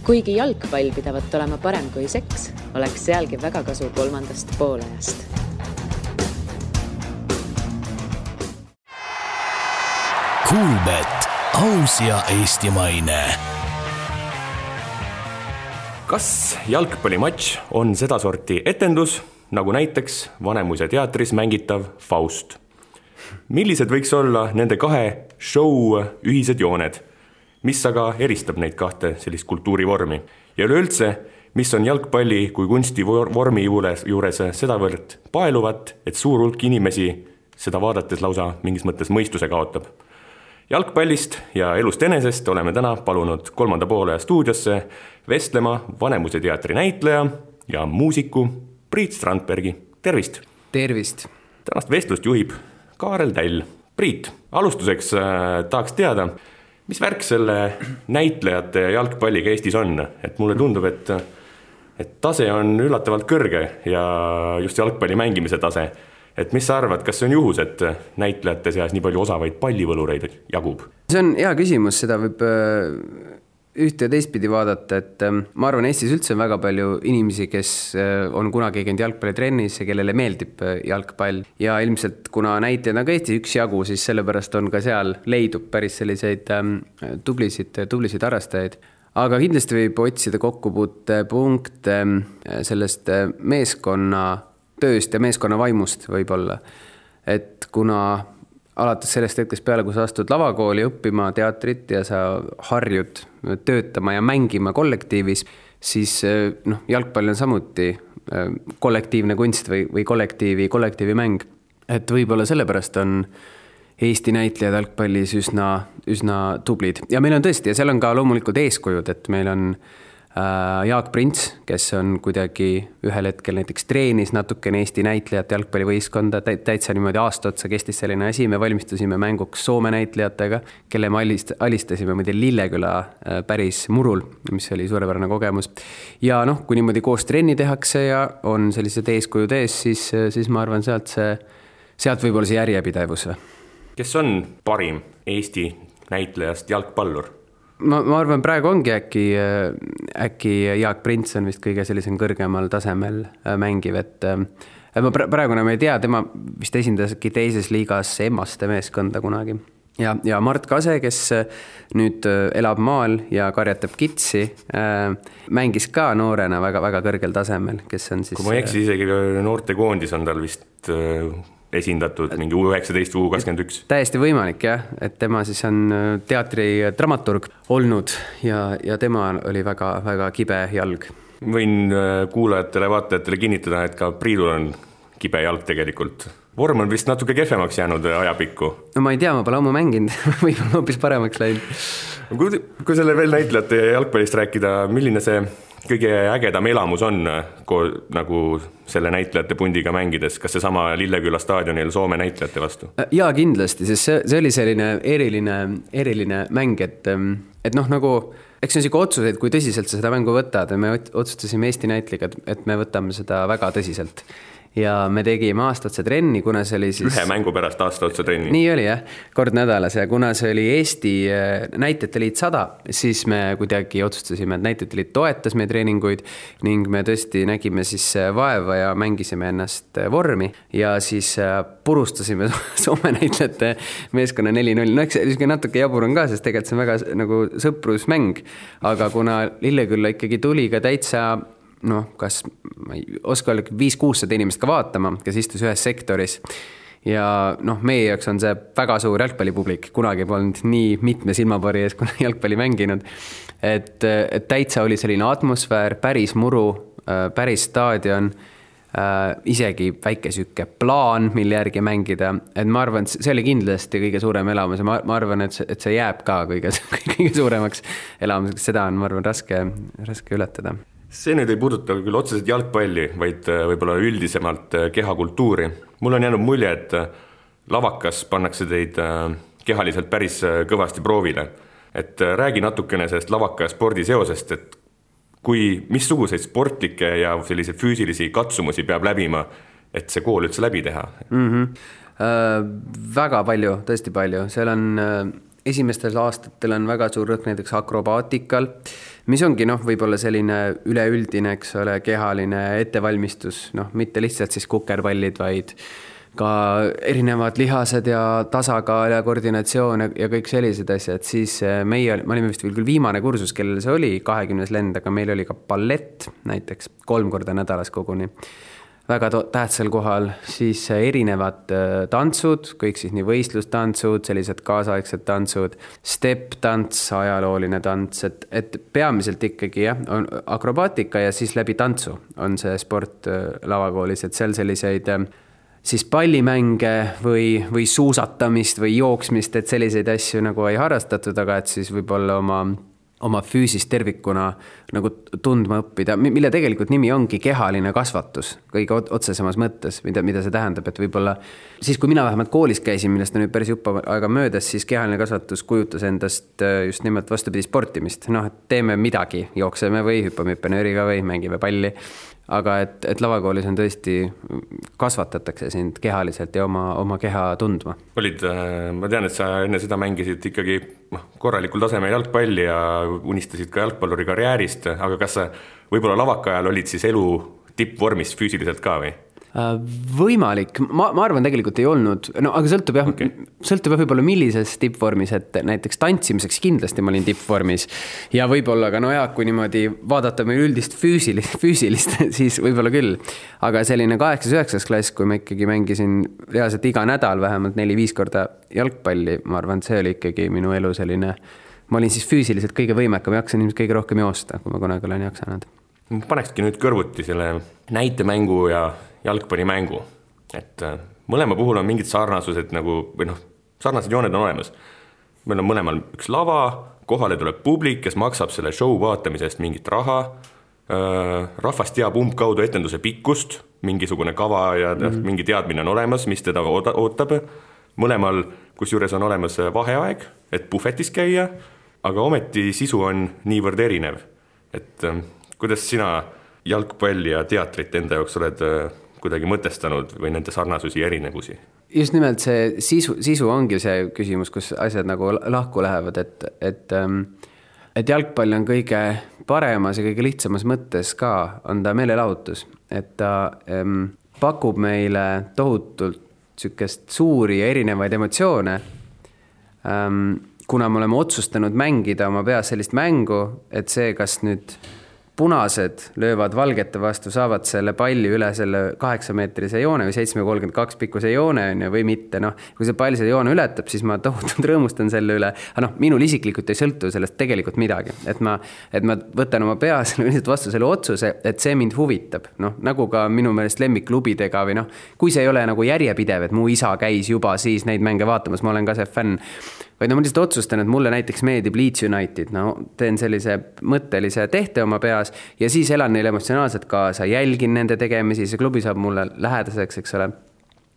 Kuigi jalgpall pidavat olema parem kui seks, oleks sealgi väga kasu kolmandast poolajast. Kuulbet, aus ja eestimaine. Kas jalgpallimatš on sedasorti etendus, nagu näiteks Vanemuise teatris mängitav Faust? Millised võiks olla nende kahe show ühised jooned? Mis aga eristab neid kahte sellist kultuurivormi? Ja üleüldse, mis on jalgpalli kui kunsti vormi juures sedavõrd paeluvat, et suur hulk inimesi seda vaadates lausa mingis mõttes mõistuse kaotab? Jalgpallist ja elust enesest oleme täna palunud kolmanda poolaja stuudiosse vestlema Vanemuise teatri näitleja ja muusiku Priit Strandbergi. Tervist! Tervist! Tänast vestlust juhib Kaarel Täll. Priit, alustuseks tahaks teada, mis värk selle näitlejate ja jalgpalliga Eestis on? Et mulle tundub, et tase on üllatavalt kõrge ja just jalgpalli mängimise tase. Et mis sa arvad, kas see on juhus, et näitlejate seas nii palju osavaid pallivõlureid jagub? See on hea küsimus, seda võib ühte ja teistpidi vaadata, et ma arvan, Eestis üldse on väga palju inimesi, kes on kunagi käinud jalgpallitrennis ja kellele meeldib jalgpall. Ja ilmselt, kuna näitlejaid on ka Eestis üksjagu, siis sellepärast on ka seal leidub päris selliseid tublisid harrastajaid. Aga kindlasti võib otsida kokkupuutepunkte sellest meeskonna tööst ja meeskonna vaimust võib-olla. Et kuna alates sellest hetkest peale, kui sa astud lavakooli õppima teatrit ja sa harjud töötama ja mängima kollektiivis, siis jalgpall on samuti kollektiivne kunst või kollektiivi mäng. Et võib-olla sellepärast on Eesti näitlejad jalgpallis üsna tublid. Ja meil on tõesti, ja seal on ka loomulikult eeskujud, et meil on Jaak Prints, kes on kuidagi ühel hetkel näiteks treenis natukene Eesti näitlejat jalgpallivõistkonda, täitsa niimoodi aasta otsa kestis selline asi, me valmistusime mänguks Soome näitlejatega, kelle me alistasime Lilleküla päris murul, mis oli suurepärane kogemus. Ja kui niimoodi koos trenni tehakse ja on sellised eeskujud ees, siis ma arvan, sealt võib olla see järjepidevus. Kes on parim Eesti näitlejast jalgpallur? Ma arvan, praegu ongi äkki Jaak Prints on vist kõige sellisem kõrgemal tasemel mängiv, et praegune me ei tea, tema vist esindaski teises liigas Emmaste meeskonda kunagi. Ja Mart Kase, kes nüüd elab maal ja karjatab kitsi, mängis ka noorena väga kõrgel tasemel, kes on siis... Kui ma eksi, isegi noorte koondis on tal vist... esindatud mingi U19, U21. Täiesti võimalik, jah, et tema siis on teatri dramaturg olnud ja tema oli väga kibe jalg. Võin kuulajatele, vaatajatele kinnitada, et ka Priidul on kibe jalg tegelikult. Vorm on vist natuke kehvemaks jäänud ajapikku. No ma ei tea, ma pole ammu mänginud, võib-olla hoopis paremaks läinud. Kui selle veel näitlejate jalgpallist rääkida, milline see kõige ägedam elamus on nagu selle näitlejate pundiga mängides? Kas see sama Lilleküla staadionil Soome näitlejate vastu? Jaa, kindlasti, sest see oli selline eriline mäng, et nagu, eks see on siuke otsuseid, kui tõsiselt sa seda mängu võtad, me otsustasime Eesti näitliga, et me võtame seda väga tõsiselt. Ja me tegime aastaotsa trenni, kuna see oli siis... Ühe mängu pärast aastaotsa trenni. Nii oli, jah, kord nädalas. Ja kuna see oli Eesti näitlejate liit 100, siis me kuidagi otsustasime, et näitlejate liit toetas meie treeninguid ning me tõesti nägime siis vaeva ja mängisime ennast vormi ja siis purustasime Soome näitlejate meeskonna 4-0. No eks see natuke jabur on ka, sest tegelikult see on väga nagu sõprusmäng, aga kuna Lillekülla ikkagi tuli ka täitsa kas ma ei oska olla 500-600 inimest ka vaatama, kes istus ühes sektoris ja meie jaoks on see väga suur jalgpallipublik, kunagi polnud nii mitme silmapari ees, kui jalgpalli mänginud, et täitsa oli selline atmosfäär, päris muru, päris staadion, isegi väike süke plaan, mille järgi mängida, et ma arvan, et see oli kindlasti kõige suurem elamus ja ma arvan, et see jääb ka kõige suuremaks elamuseks, seda on, ma arvan, raske ületada. See nüüd ei puuduta küll otseselt jalgpalli, vaid võib-olla üldisemalt kehakultuuri. Mul on jäänud mulje, et lavakas pannakse teid kehaliselt päris kõvasti proovile. Et räägi natukene sellest lavaka ja spordi seosest, et missuguseid sportlikke ja selliseid füüsilisi katsumusi peab läbima, et see kool üldse läbi teha? Väga palju, tõesti palju. Seal on esimestel aastatel on väga suur rõhk näiteks akrobaatikal, mis ongi võib-olla selline üleüldine, eks ole, kehaline ettevalmistus, mitte lihtsalt siis kukerpallid, vaid ka erinevad lihased ja tasakaal ja koordinatsioon ja kõik sellised asjad, siis me olime vist küll viimane kursus, kellel see oli 20 lend, aga meil oli ka ballett näiteks 3 korda nädalas koguni. Väga tähtsal kohal, siis erinevad tantsud, kõik siis nii võistlustantsud, sellised kaasaegsed tantsud, step-tants, ajalooline tants, et peamiselt ikkagi on akrobaatika ja siis läbi tantsu on see sport lavakoolis, et seal selliseid siis pallimänge või suusatamist või jooksmist, et selliseid asju nagu ei harrastatud, aga et siis võib-olla oma füüsist tervikuna nagu tundma õppida, mille tegelikult nimi ongi kehaline kasvatus kõige otsesemas mõttes, mida see tähendab, et võib-olla siis, kui mina vähemalt koolis käisin, millest on nüüd päris jupp aega möödas, siis kehaline kasvatus kujutas endast just nimelt vastupidi sportimist. Et teeme midagi, jookseme või hüppame hüppenööriga või mängime palli. Aga et lavakoolis on tõesti, kasvatatakse sind kehaliselt ja oma keha tundma. Ma tean, et sa enne seda mängisid ikkagi korralikul tasemel jalgpalli ja unistasid ka jalgpalluri karjäärist, aga kas sa võib-olla lavaka ajal olid siis elu tippvormis füüsiliselt ka või? Võimalik, ma arvan tegelikult ei olnud, aga sõltub võib-olla millises tippvormis, et näiteks tantsimiseks kindlasti ma olin tippvormis ja võib-olla ka kui niimoodi vaadata meil üldist füüsilist, siis võib-olla küll, aga selline 8-9 klass, kui ma ikkagi mängisin reaalselt iga nädal vähemalt 4-5 korda jalgpalli, ma arvan, see oli ikkagi minu elu selline, ma olin siis füüsiliselt kõige võimekam, jaksan ilmselt kõige rohkem joosta, kui ma kunagi olen jaksanud. Ma panekski nüüd kõrvuti selle näitemängu ja jalgpallimängu, et mõlema puhul on mingid sarnasused sarnased jooned on olemas. Meil on mõlemal üks lava, kohale tuleb publik, kes maksab selle show vaatamisest mingit raha, rahvas teab umbkaudu etenduse pikkust, mingisugune kava ja mingi teadmine on olemas, mis teda ootab. Mõlemal, kus juures on olemas vaheaeg, et puhvetis käia, aga ometi sisu on niivõrd erinev. Et kuidas sina jalgpalli ja teatrit enda jaoks oled kuidagi mõtestanud või nende sarnasusi ja erinevusi? Just nimelt see sisu ongi see küsimus, kus asjad nagu lahku lähevad, et jalgpall on kõige paremas ja kõige lihtsamas mõttes ka, on ta meelelahutus, et ta pakub meile tohutult sükest suuri ja erinevaid emotsioone, kuna me oleme otsustanud mängida oma peas sellist mängu, et see, kas nüüd punased löövad valgete vastu, saavad selle palli üle selle 8-meetrise joone või 7,32 pikkuse joone või mitte. Kui see pall selle joone ületab, siis ma tohutult rõõmustan selle üle. Aga minul isiklikult ei sõltu sellest tegelikult midagi. Et ma võtan oma peas vastu selle otsuse, et see mind huvitab. Nagu ka minu meelest lemmikklubidega või kui see ei ole nagu järjepidev, et mu isa käis juba siis neid mänge vaatamas, ma olen ka see fänn. Vaid ma lihtsalt otsustan, et mulle näiteks meeldib Leeds United, teen sellise mõttelise tehte oma peas ja siis elan neile emotsionaalselt kaasa, jälgin nende tegemisi, see klubi saab mulle lähedaseks, eks ole.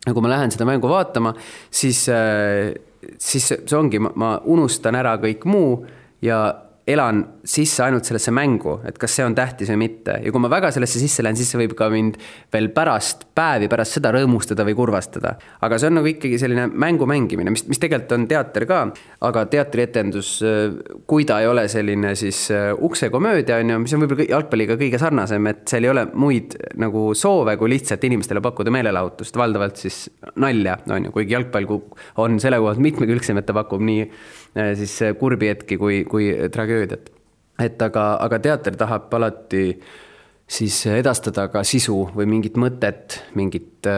Ja kui ma lähen seda mängu vaatama, siis see ongi, ma unustan ära kõik muu ja elan sisse ainult sellesse mängu, et kas see on tähtis või mitte. Ja kui ma väga sellesse sisse lähen, siis see võib ka mind veel pärast seda rõõmustada või kurvastada. Aga see on nagu ikkagi selline mängu mängimine, mis tegelikult on teater ka, aga teatrietendus, kui ta ei ole selline siis uksekomöödia, mis on võib-olla jalgpalliga kõige sarnasem, et seal ei ole muid nagu soove, kui lihtsalt inimestele pakkuda meelelahutust, valdavalt siis nalja, kuigi jalgpall on selle kohalt mitmekülgsem, et ta pakub nii siis kurbi hetki kui tragöödiat. Aga teater tahab alati siis edastada ka sisu või mingit mõtet, mingit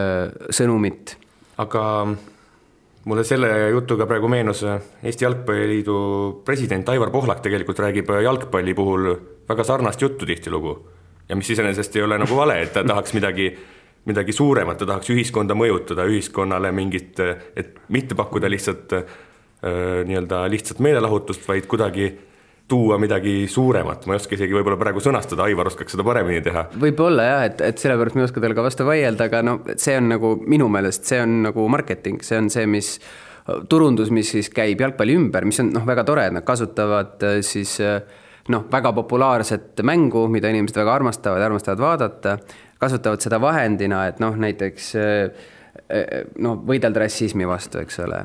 sõnumit. Aga mulle selle jutuga praegu meenus Eesti Jalgpalliliidu president Aivar Pohlak tegelikult räägib jalgpalli puhul väga sarnast juttu tihtilugu. Ja mis iseenesest ei ole nagu vale, et ta tahaks midagi suuremat, ta tahaks ühiskonda mõjutada, ühiskonnale mingit, et mitte pakkuda lihtsalt lihtsalt meelelahutust, vaid kuidagi tuua midagi suuremat. Ma ei oska isegi võib-olla praegu sõnastada, Aivar oskaks seda paremini teha. Võib-olla jah, et sellepärast me ei oska teile ka vastu vaielda, aga see on nagu minu meelest, see on nagu marketing, see on see, mis turundus, mis siis käib jalgpalli ümber, mis on väga tore, et nad kasutavad siis väga populaarset mängu, mida inimesed väga armastavad vaadata, kasutavad seda vahendina, et näiteks võidelda rassismi vastu, eks ole,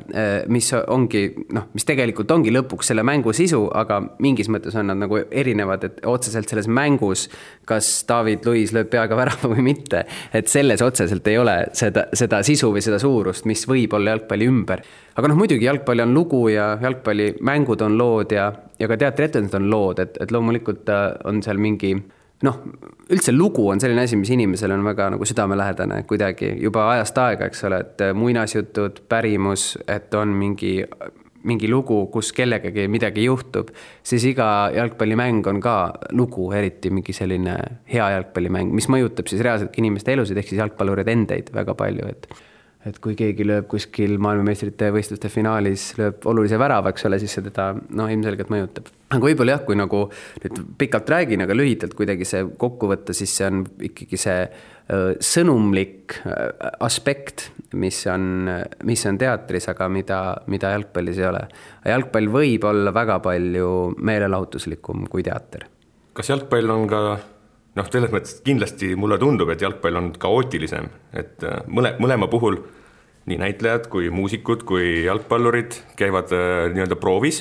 mis tegelikult ongi lõpuks selle mängu sisu, aga mingis mõttes on nad nagu erinevad, et otseselt selles mängus, kas David Luiz lööb peaga värava või mitte, et selles otseselt ei ole seda sisu või seda suurust, mis võib olla jalgpalli ümber. Aga muidugi jalgpalli on lugu ja jalgpalli mängud on lood ja ka teatrietendused on lood, et loomulikult on seal mingi üldse lugu on selline asi, mis inimesele on väga nagu südamelähedane kuidagi juba ajast aega, eks ole, et muinasjutud, pärimus, et on mingi lugu, kus kellegagi midagi juhtub, siis iga jalgpallimäng on ka lugu, eriti mingi selline hea jalgpallimäng, mis mõjutab siis reaalselt inimeste elusid, ehk siis jalgpallurid endeid väga palju, et kui keegi lööb kuskil maailmameistrite võistluste finaalis, lööb olulise värava, eks ole, siis see teda ilmselgelt mõjutab. Aga võib-olla jah, kui nagu nüüd pikalt räägin, aga lühidalt kuidagi see kokku võtta, siis see on ikkagi see sõnumlik aspekt, mis on teatris, aga mida jalgpallis ei ole. Jalgpall võib olla väga palju meelelahutuslikum kui teater. Kas jalgpall on ka selles mõttes kindlasti mulle tundub, et jalgpall on kaootilisem, et mõlema puhul nii näitlejad kui muusikud kui jalgpallurid käivad nii-öelda proovis,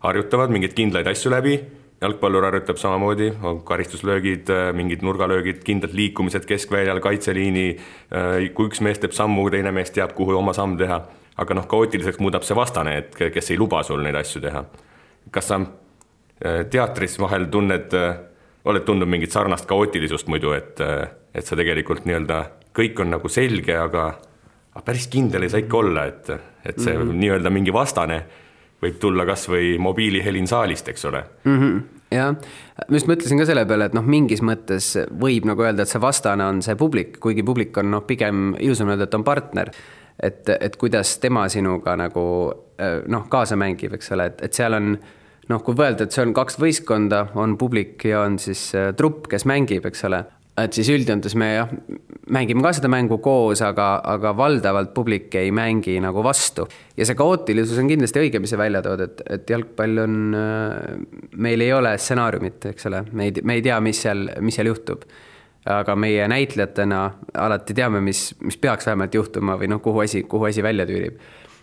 harjutavad mingeid kindlaid asju läbi, jalgpallur harjutab samamoodi, karistuslöögid, mingid nurgalöögid, kindlad liikumised keskväljal, kaitseliini, kui üks mees teeb sammu, teine mees teab, kuhu oma samm teha, aga kaootiliseks muudab see vastane, et kes ei luba sul neid asju teha. Kas sa teatris vahel oled tundnud mingit sarnast kaootilisust muidu, et sa tegelikult nii-öelda kõik on nagu selge, aga päris kindel ei saa ikka olla, et see nii-öelda mingi vastane võib tulla kas või mobiilihelin saalist, eks ole. Jah, ma just mõtlesin ka selle peale, et mingis mõttes võib nagu öelda, et see vastane on see publik, kuigi publik on pigem ilusam öelda, et on partner, et kuidas tema sinuga nagu kaasa mängib, eks ole, et seal on kui võelda, et see on 2 võistkonda, on publik ja on siis trupp, kes mängib, eks ole. Et siis üldjöntes me mängime ka seda mängu koos, aga valdavalt publik ei mängi nagu vastu. Ja see kaootilisus on kindlasti õige, mis see välja tood, et jalgpall on, meil ei ole stsenaariumit, eks ole. Me ei tea, mis seal juhtub. Aga meie näitlejatena alati teame, mis peaks vähemalt juhtuma või kuhu asi välja tüürib.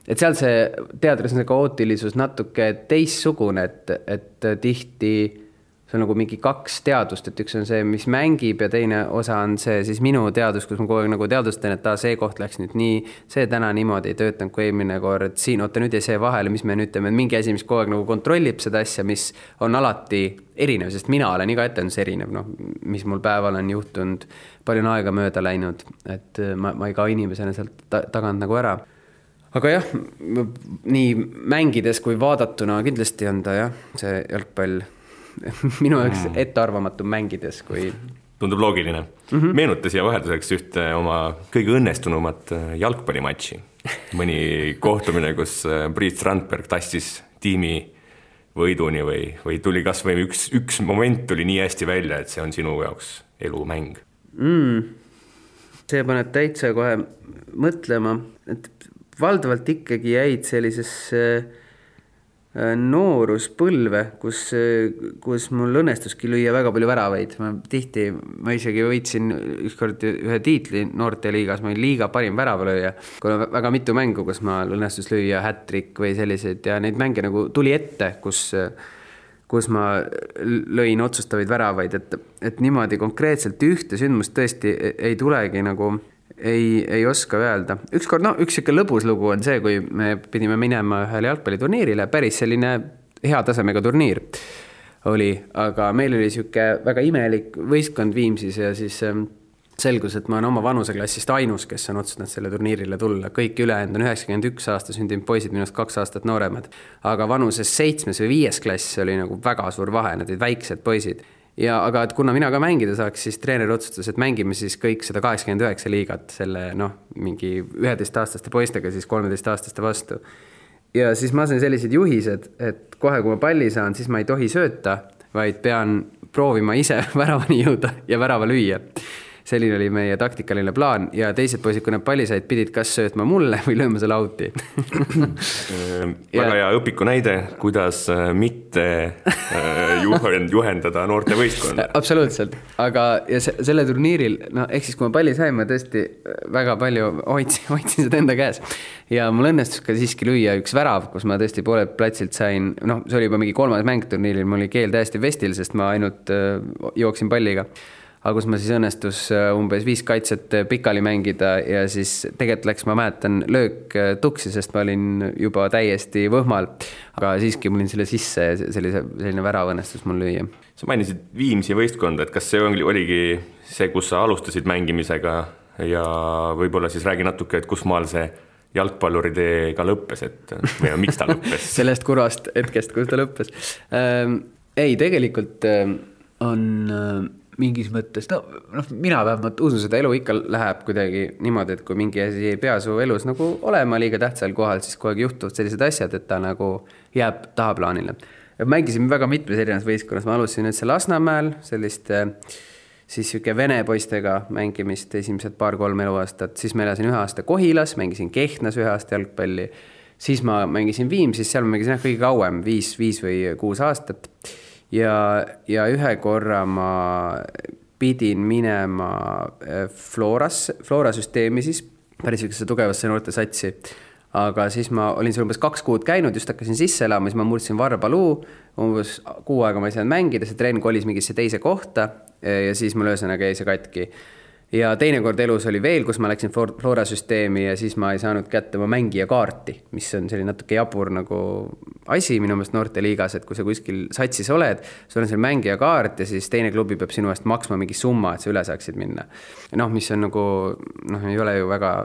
Et seal see teatris on see kaootilisus natuke teissugune, et tihti see on nagu mingi 2 teadust, et üks on see, mis mängib ja teine osa on see siis minu teadus, kus ma kogu aeg nagu teadustan, et see koht läks nüüd nii, see täna niimoodi ei töötanud kui eelmine kord, siin oota nüüd ja see vahele, mis me nüüd teeme, mingi asi, mis kogu aeg nagu kontrollib seda asja, mis on alati erinev, sest mina olen iga etendus erinev, mis mul päeval on juhtunud, palju on aega mööda läinud, et ma ei ka inimesena sealt tagant nagu ära. Aga jah, nii mängides kui vaadatuna kindlasti on ta see jalgpall minu jaoks ettearvamatum mängides kui... Tundub loogiline. Meenuta siia vahelduseks ühte oma kõige õnnestunumat jalgpallimatši. Mõni kohtumine, kus Priit Strandberg tassis tiimi võiduni või tuli kas või üks moment tuli nii hästi välja, et see on sinu jaoks elumäng. See paneb täitsa kohe mõtlema, et valdavalt ikkagi jäid sellisesse nooruspõlve, kus mul õnnestuski lüüa väga palju väravaid. Ma isegi võitsin ükskord ühe tiitli noorteliigas, ma olin liiga parim väravalööja. Kui on väga mitu mängu, kus ma õnnestus lüüa hat-trick või sellised ja neid mänge nagu tuli ette, kus ma lõin otsustavaid väravaid, et niimoodi konkreetselt ühte sündmust tõesti ei tulegi nagu... Ei oska öelda. Ükskord, üks siuke lõbus lugu on see, kui me pidime minema ühele jalgpalliturniirile, päris selline hea tasemega turniir oli, aga meil oli siuke väga imelik võistkond Viimsis ja siis selgus, et ma olen oma vanuseklassist ainus, kes on otsustanud selle turniirile tulla. Kõik ülejäänud on 91 aasta sündinud poisid, minust 2 aastat nooremad, aga vanuses 7. või 5. klass oli nagu väga suur vahe, nad olid väiksed poisid. Aga et kuna mina ka mängida saaks, siis treener otsustas, et mängime siis kõik 189 liigat selle mingi 11-aastaste poistega siis 13-aastaste vastu. Ja siis ma sain sellised juhised, et kohe kui ma palli saan, siis ma ei tohi sööta, vaid pean proovima ise väravani jõuda ja värava lüüa. selline oli meie taktikaline plaan ja teised poisid, kui nad palli said, pidid kas söötma mulle või lööma selle auti. Väga hea õpiku näide, kuidas mitte juhendada noorte võistkonda. Absoluutselt, aga ja selle turniiril, ehk siis kui ma palli sain, ma tõesti väga palju hoidsin seda enda käes ja mul õnnestus ka siiski lüüa üks värav, kus ma tõesti poolelt platsilt sain, see oli juba mingi 3. mäng turniiril, mul oli keel täiesti vestil, sest ma ainult jooksin palliga. Aga kus ma siis õnnestus umbes 5 kaitset pikali mängida ja siis tegelikult läks, ma mäletan, löök tuksi, sest ma olin juba täiesti võhmal. Aga siiski mul olin selle sisse ja selline värav õnnestus mul lüüa. Sa mainisid Viimsi võistkonda, et kas see oligi see, kus sa alustasid mängimisega ja võib-olla siis räägi natuke, et kus maal see jalgpalluri teega lõppes, või miks ta lõppes? Sellest kurvast hetkest, kus ta lõppes. Ei, tegelikult on mingis mõttes, mina vähemalt usun seda, elu ikka läheb kuidagi niimoodi, et kui mingi asi ei pea su elus nagu olema liiga tähtsal kohal, siis kogu aeg juhtuvad sellised asjad, et ta nagu jääb tahaplaanile. Mängisime väga mitmes erinevas võistkonnas, ma alustasin nüüd Lasnamäel sellist siis siuke vene poistega mängimist esimesed 2-3 eluaastat, siis ma elasin 1 aasta Kohilas, mängisin Kehtnas 1 aasta jalgpalli, siis ma mängisin Viimsis, seal ma mängisin kõige kauem, 5 või 6 aastat ja ühe korra ma pidin minema Flora süsteemi siis, päris ükse tugevasse noorte satsi, aga siis ma olin seal umbes 2 kuud käinud, just hakkasin sisse elama, siis ma murdsin varbaluu, umbes 6 aega ma ei saanud mängida, see trenn kolis mingisse teise kohta ja siis mul ühesõnaga jäi see katki. Ja teine kord elus oli veel, kus ma läksin Flora süsteemi ja siis ma ei saanud kätte oma mängija kaarti, mis on selline natuke jabur nagu asi minu meelest noorteliigas, et kui sa kuskil satsis oled, sul on seal mängija kaart ja siis teine klubi peab sinu eest maksma mingi summa, et sa üle saaksid minna. Mis on nagu, ei ole ju väga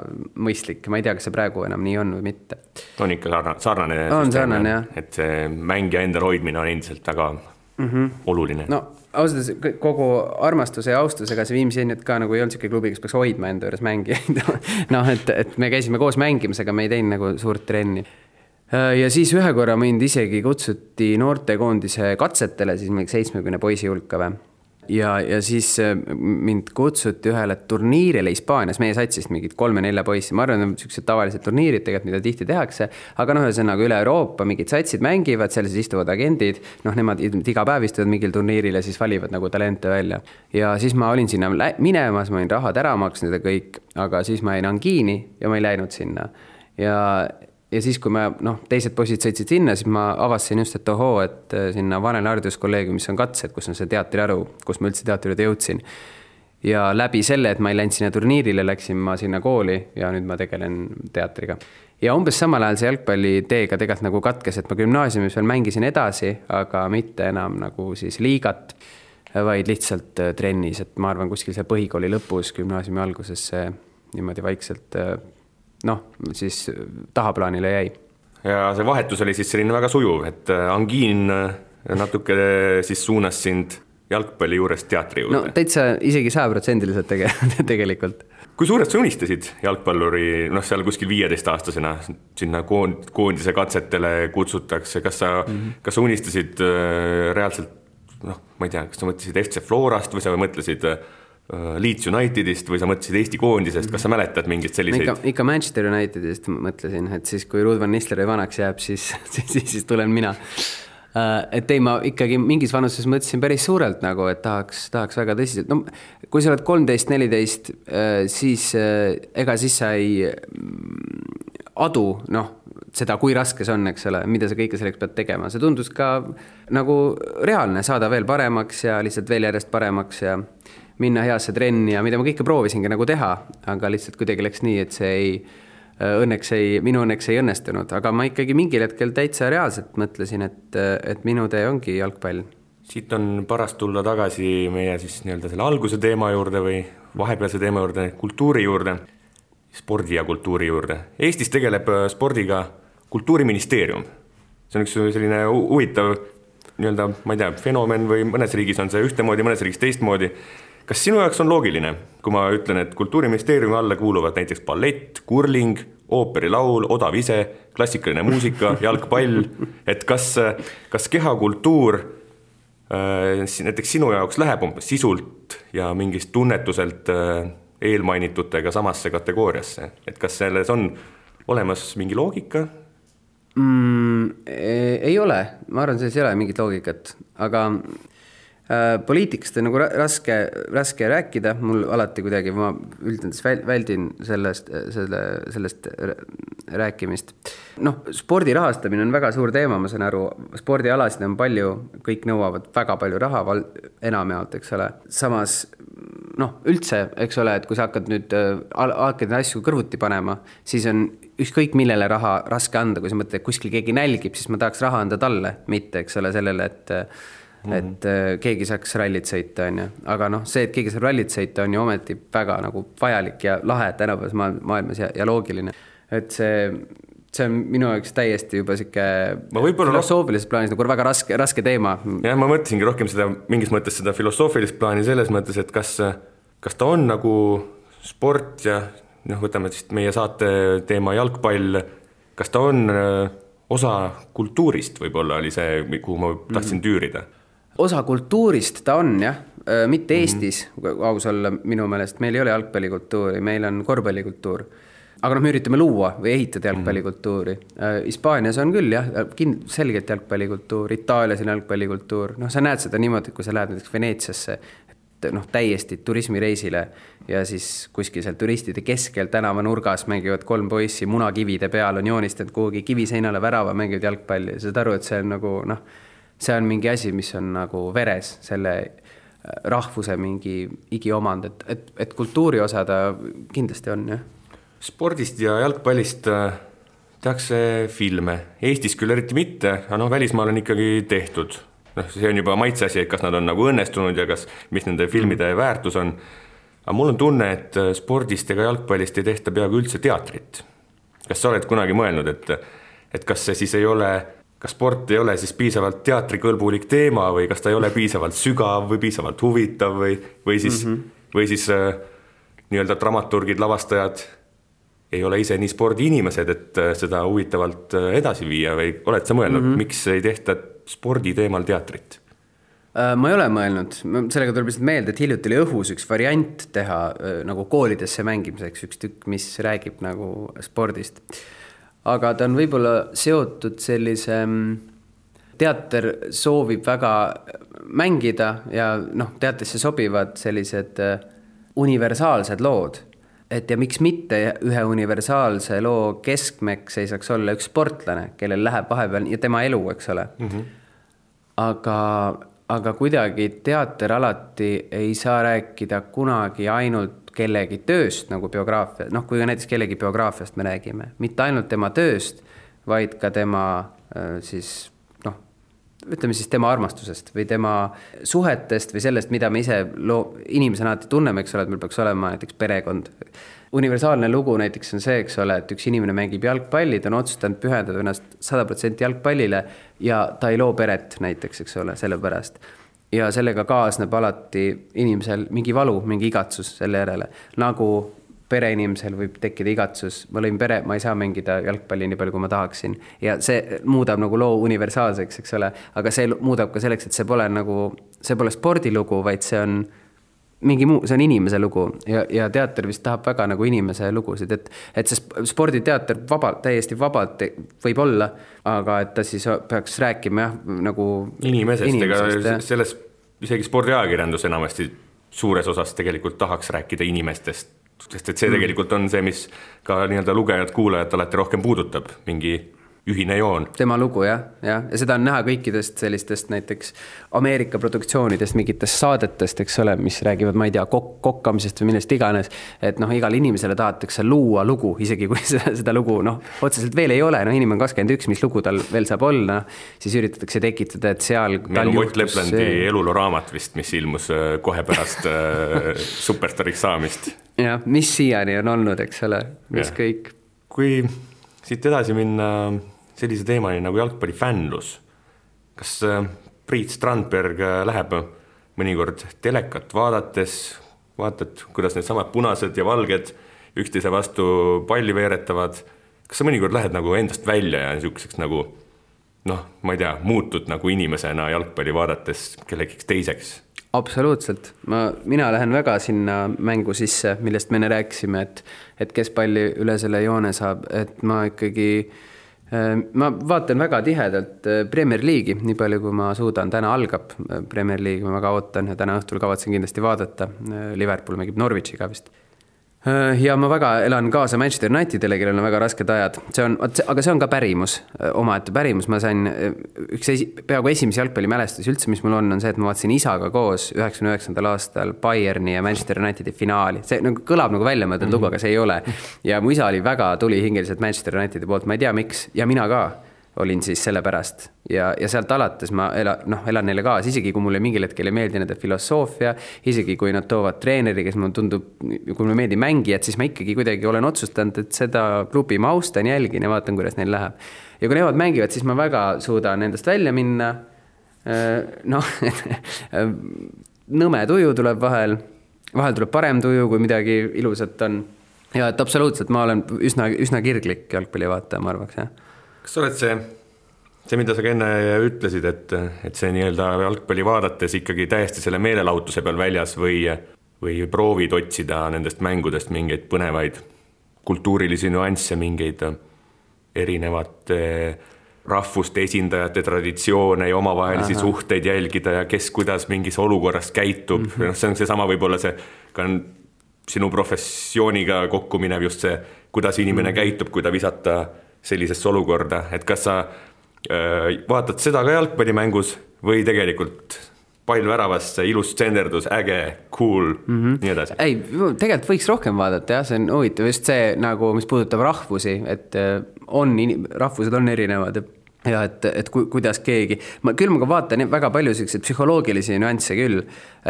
mõistlik, ma ei tea, kas see praegu enam nii on või mitte. On ikka sarnane süsteem, et see mängija endal hoidmine on endiselt väga oluline. Ausalt, kogu armastuse ja austusega see Viimsi ennut ka nagu ei olnud siuke klubi, kes peaks hoidma enda juures mängijaid. et me käisime koos mängimas, aga me ei teinud nagu suurt trenni. Ja siis ühe korra mind isegi kutsuti noortekoondise katsetele, siis mingi 70 poisi hulka või. Ja siis mind kutsuti ühele turniirile Hispaanias, meie satsist mingid 3-4 poissi. Ma arvan, et sellised tavalised turniirid tegelikult, mida tihti tehakse, aga ühesõnaga üle Euroopa mingid satsid mängivad, seal siis istuvad agendid, nemad iga päev istuvad mingil turniiril ja siis valivad nagu talente välja. Ja siis ma olin sinna minemas, ma olin rahad ära maksnud ja kõik, aga siis ma jäin angiini ja ma ei läinud sinna. Ja siis, kui teised poisid sõitsid sinna, siis ma avastasin just, et et sinna Vanel Hariduskolleegiumis on katsed, kus on see teatriaru, kus ma üldse teatrijuurde jõudsin. Ja läbi selle, et ma ei läinud sinna turniirile, läksin ma sinna kooli ja nüüd ma tegelen teatriga. Ja umbes samal ajal see jalgpalliteega tegelikult nagu katkes, et ma gümnaasiumis veel mängisin edasi, aga mitte enam nagu siis liigat, vaid lihtsalt trennis, et ma arvan kuskil see põhikooli lõpus, gümnaasiumi alguses see niimoodi vaikselt siis tahaplaanile jäi. Ja see vahetus oli siis selline väga sujuv, et angiin natuke siis suunas sind jalgpalli juurest teatri juurde. Täitsa isegi 100% tegelikult. Kui suured sa unistasid jalgpalluri, seal kuskil 15-aastasena sinna koondise katsetele kutsutakse, kas sa unistasid reaalselt, ma ei tea, kas sa mõtlesid FC Florast või sa mõtlesid Leeds Unitedist või sa mõtlesid Eesti koondisest, kas sa mäletad mingit selliseid? Ikka Manchester Unitedist mõtlesin, et siis kui Ruud van Nistelrooy vanaks jääb, siis tulen mina. Et ei, ma ikkagi mingis vanuses mõtlesin päris suurelt nagu, et tahaks väga tõsiselt. Kui sa oled 13-14, siis ega siis sa ei adu, seda, kui raske see on, eks ole, mida sa kõike selleks pead tegema. See tundus ka nagu reaalne saada veel paremaks ja lihtsalt veel järjest paremaks ja minna heasse trenni ja mida ma kõike proovisingi nagu teha, aga lihtsalt kuidagi läks nii, et see minu õnneks ei õnnestunud, aga ma ikkagi mingil hetkel täitsa reaalselt mõtlesin, et minu tee ongi jalgpall. Siit on parast tulla tagasi meie siis nii-öelda selle alguse teema juurde või vahepealse teema juurde, kultuuri juurde, spordi ja kultuuri juurde. Eestis tegeleb spordiga Kultuuriministeerium. See on üks selline huvitav nii-öelda, ma ei tea, fenomen või mõnes riigis on see ühtemoodi, mõnes riigis teistmoodi. Kas sinu jaoks on loogiline, kui ma ütlen, et Kultuuriministeeriumi alla kuuluvad näiteks ballett, kurling, ooperilaul, odav ise, klassikaline muusika, jalgpall, et kas kehakultuur näiteks sinu jaoks läheb umbes sisult ja mingist tunnetuselt eelmainitutega samasse kategooriasse, et kas selles on olemas mingi loogika? Ei ole, ma arvan, selles ei ole mingit loogikat, aga poliitikast on nagu raske rääkida, mul alati kuidagi, ma üldendis väldin sellest rääkimist. Noh, spordi rahastamine on väga suur teema, ma saan aru, spordialasid on palju, kõik nõuavad väga palju raha, enamjaolt, eks ole. Samas, noh, üldse, eks ole, et kui sa hakkad nüüd hakkad asju kõrvuti panema, siis on ükskõik millele raha raske anda, kui sa mõtled, et kuskil keegi nälgib, siis ma tahaks raha anda talle, mitte, eks ole, sellele, et keegi saaks rallit sõita, on ju. Aga noh, see, et keegi saab rallit sõita, on ju ometi väga nagu vajalik ja lahe tänapäevas maailmas ja loogiline. Et see on minu jaoks täiesti juba siuke filosoofilises plaanis nagu väga raske teema. Ja ma mõtlesingi rohkem seda, mingis mõttes seda filosoofilist plaani selles mõttes, et kas ta on nagu sport ja noh, võtame siis meie saate teema jalgpall, kas ta on osa kultuurist võib-olla oli see, kuhu ma tahtsin tüürida? Osa kultuurist ta on, jah. Mitte Eestis, aus olla minu meelest. Meil ei ole jalgpallikultuuri, meil on korvpallikultuur. Aga me üritame luua või ehitada jalgpallikultuuri. Hispaanias on küll, jah, selgelt jalgpallikultuur. Itaalias on jalgpallikultuur. Noh, sa näed seda niimoodi, kui sa lähed näiteks Veneetsiasse, noh, täiesti turismireisile ja siis kuskil seal turistide keskel tänava nurgas mängivad 3 poissi, munakivide peal on joonistanud kuhugi kiviseinale värava, mängivad jalgpalli. Sa saad aru, et see on nagu, noh, see on mingi asi, mis on nagu veres, selle rahvuse mingi igiomand, et kultuuri osa ta kindlasti on, jah. Spordist ja jalgpallist tehakse filme. Eestis küll eriti mitte, aga noh, välismaal on ikkagi tehtud. Noh, see on juba maitse asi, et kas nad on nagu õnnestunud ja mis nende filmide väärtus on. Aga mul on tunne, et spordist ega jalgpallist ei tehta peaaegu üldse teatrit. Kas sa oled kunagi mõelnud, et kas see siis ei ole, kas sport ei ole siis piisavalt teatrikõlbulik teema või kas ta ei ole piisavalt sügav või piisavalt huvitav või siis nii-öelda dramaturgid, lavastajad ei ole ise nii spordiinimesed, et seda huvitavalt edasi viia või oled sa mõelnud, miks ei tehta spordi teemal teatrit? Ma ei ole mõelnud, sellega tuleb lihtsalt meelde, et hiljuti oli õhus üks variant teha nagu koolidesse mängimiseks üks tükk, mis räägib nagu spordist. Aga ta on võib-olla seotud sellise, teater soovib väga mängida ja noh, teatrisse sobivad sellised universaalsed lood. Et ja miks mitte ühe universaalse loo keskmeks ei saaks olla üks sportlane, kellel läheb vahepeal ja tema elu, eks ole. Aga kuidagi teater alati ei saa rääkida kunagi ainult kellegi tööst nagu biograafia, noh, kui näiteks kellegi biograafiast me räägime, mitte ainult tema tööst, vaid ka tema siis, noh, ütleme siis tema armastusest või tema suhetest või sellest, mida me ise inimesena alati tunneme, eks ole, et meil peaks olema näiteks perekond. Universaalne lugu näiteks on see, eks ole, et üks inimene mängib jalgpalli, ta on otsustanud pühendada ennast 100% jalgpallile ja ta ei loo peret näiteks, eks ole, selle pärast. Ja sellega kaasneb alati inimesel mingi valu, mingi igatsus selle järele. Nagu pereinimesel võib tekkida igatsus, ma lõin pere, ma ei saa mängida jalgpalli nii palju, kui ma tahaksin. Ja see muudab nagu loo universaalseks, eks ole, aga see muudab ka selleks, et see pole spordilugu, vaid see on mingi muu, see on inimese lugu ja teater vist tahab väga nagu inimese lugusid, et see sporditeater täiesti vabalt võib olla, aga et ta siis peaks rääkima nagu inimesest, ega selles isegi spordiajakirjandus enamasti suures osas tegelikult tahaks rääkida inimestest, sest et see tegelikult on see, mis ka nii-öelda lugejad, kuulajad alati rohkem puudutab, mingi ühine joon. Tema lugu, jah. Ja seda on näha kõikidest sellistest näiteks Ameerika produktsioonidest, mingitest saadetest, eks ole, mis räägivad, ma ei tea, kokkamisest või millest iganes, et noh, igal inimesele tahetakse luua lugu, isegi kui seda lugu, noh, otseselt veel ei ole, noh, inimene on 21, mis lugu tal veel saab olla, siis üritatakse tekitada, et seal tal juhtus... Ott Leplandi eluloo raamat vist, mis ilmus kohe pärast superstariks saamist. Ja, mis siiani on olnud, eks ole, mis ja. Kõik. Kui siit edasi minna sellise teemani nagu jalgpallifännlus. Kas Priit Strandberg läheb mõnikord telekat vaatad, kuidas need samad punased ja valged üksteise vastu palli veeretavad. Kas sa mõnikord lähed nagu endast välja ja niisuguseks nagu, noh, ma ei tea, muutud nagu inimesena jalgpalli vaadates kellegiks teiseks? Absoluutselt. Mina lähen väga sinna mängu sisse, millest me enne rääkisime, et kes palli üle selle joone saab, et ma ikkagi ma vaatan väga tihedalt Premier League'i, nii palju kui ma suudan. Täna algab Premier League, ma väga ootan ja täna õhtul kavatsen kindlasti vaadata. Liverpool mängib Norwichiga vist. Ja ma väga elan kaasa Manchester Unitedile, kellel on väga rasked ajad. Aga see on ka pärimus, omaette pärimus. Ma sain peaaegu esimesi jalgpallimälestus üldse, mis mul on see, et ma vaatasin isaga koos 99. aastal Bayerni ja Manchester Unitedi finaali. See nagu kõlab nagu välja mõeldud lugu, aga see ei ole. Ja mu isa oli väga tulihingeliselt Manchester Unitedi poolt, ma ei tea miks, ja mina ka olin siis selle pärast. Ja sealt alates ma elan neile kaas, isegi kui mulle mingil hetkel ei meeldi nende filosoofia, isegi kui nad toovad treeneri, kes mulle tundub, kui mulle meeldi mängijad, siis ma ikkagi kuidagi olen otsustanud, et seda klubi ma austan, jälgin ja vaatan, kuidas neil läheb. Ja kui nemad mängivad, siis ma väga suudan endast välja minna. Nõme tuju tuleb vahel tuleb parem tuju, kui midagi ilusat on. Ja et absoluutselt ma olen üsna kirglik jalgpalli vaataja, ma arvaks, jah. Kas oled see, mida sa ka enne ütlesid, et see nii-öelda jalgpalli vaadates ikkagi täiesti selle meelelahutuse peal väljas või proovid otsida nendest mängudest mingeid põnevaid kultuurilisi nüansse, mingeid erinevate rahvuste esindajate traditsioone ja omavahelisi suhteid jälgida ja kes kuidas mingis olukorras käitub. See on seesama võib-olla see ka sinu professiooniga kokku minev just see, kuidas inimene käitub, kui ta visata sellisesse olukorda, et kas sa vaatad seda ka jalgpallimängus või tegelikult pall väravasse, ilus tsenderdus, äge, cool, nii edasi? Ei, tegelikult võiks rohkem vaadata, jah, see on huvitav just see, nagu, mis puudutab rahvusi, et rahvused on erinevad ja et kuidas keegi, küll ma ka vaatan väga palju selliseid psühholoogilisi nüansse küll,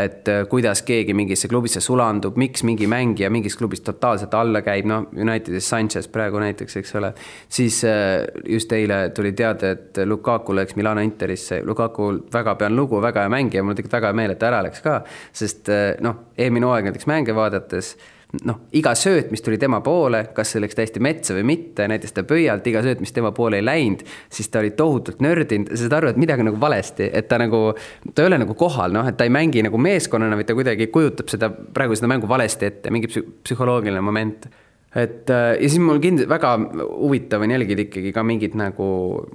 et kuidas keegi mingisse klubisse sulandub, miks mingi mängija mingis klubis totaalselt alla käib, Unitedis Sanchez praegu näiteks, eks ole, siis just eile tuli teada, et Lukaku läks Milano Interisse, Lukaku väga pean lugu, väga hea mängija, mul tegelikult väga hea meel, et ära läks ka, sest eelmine hooaeg näiteks mänge vaadates, iga sööt, mis tuli tema poole, kas see läks täiesti metsa või mitte, näiteks ta pöialt, iga sööt, mis tema poole ei läinud, siis ta oli tohutult nördinud, sa saad aru, et midagi nagu valesti, et ta ei ole nagu kohal, et ta ei mängi nagu meeskonnana, või ta kuidagi kujutab praegu seda mängu valesti ette, mingi psühholoogiline moment. Ja siis mul väga huvitav on jälgida ikkagi ka mingid nagu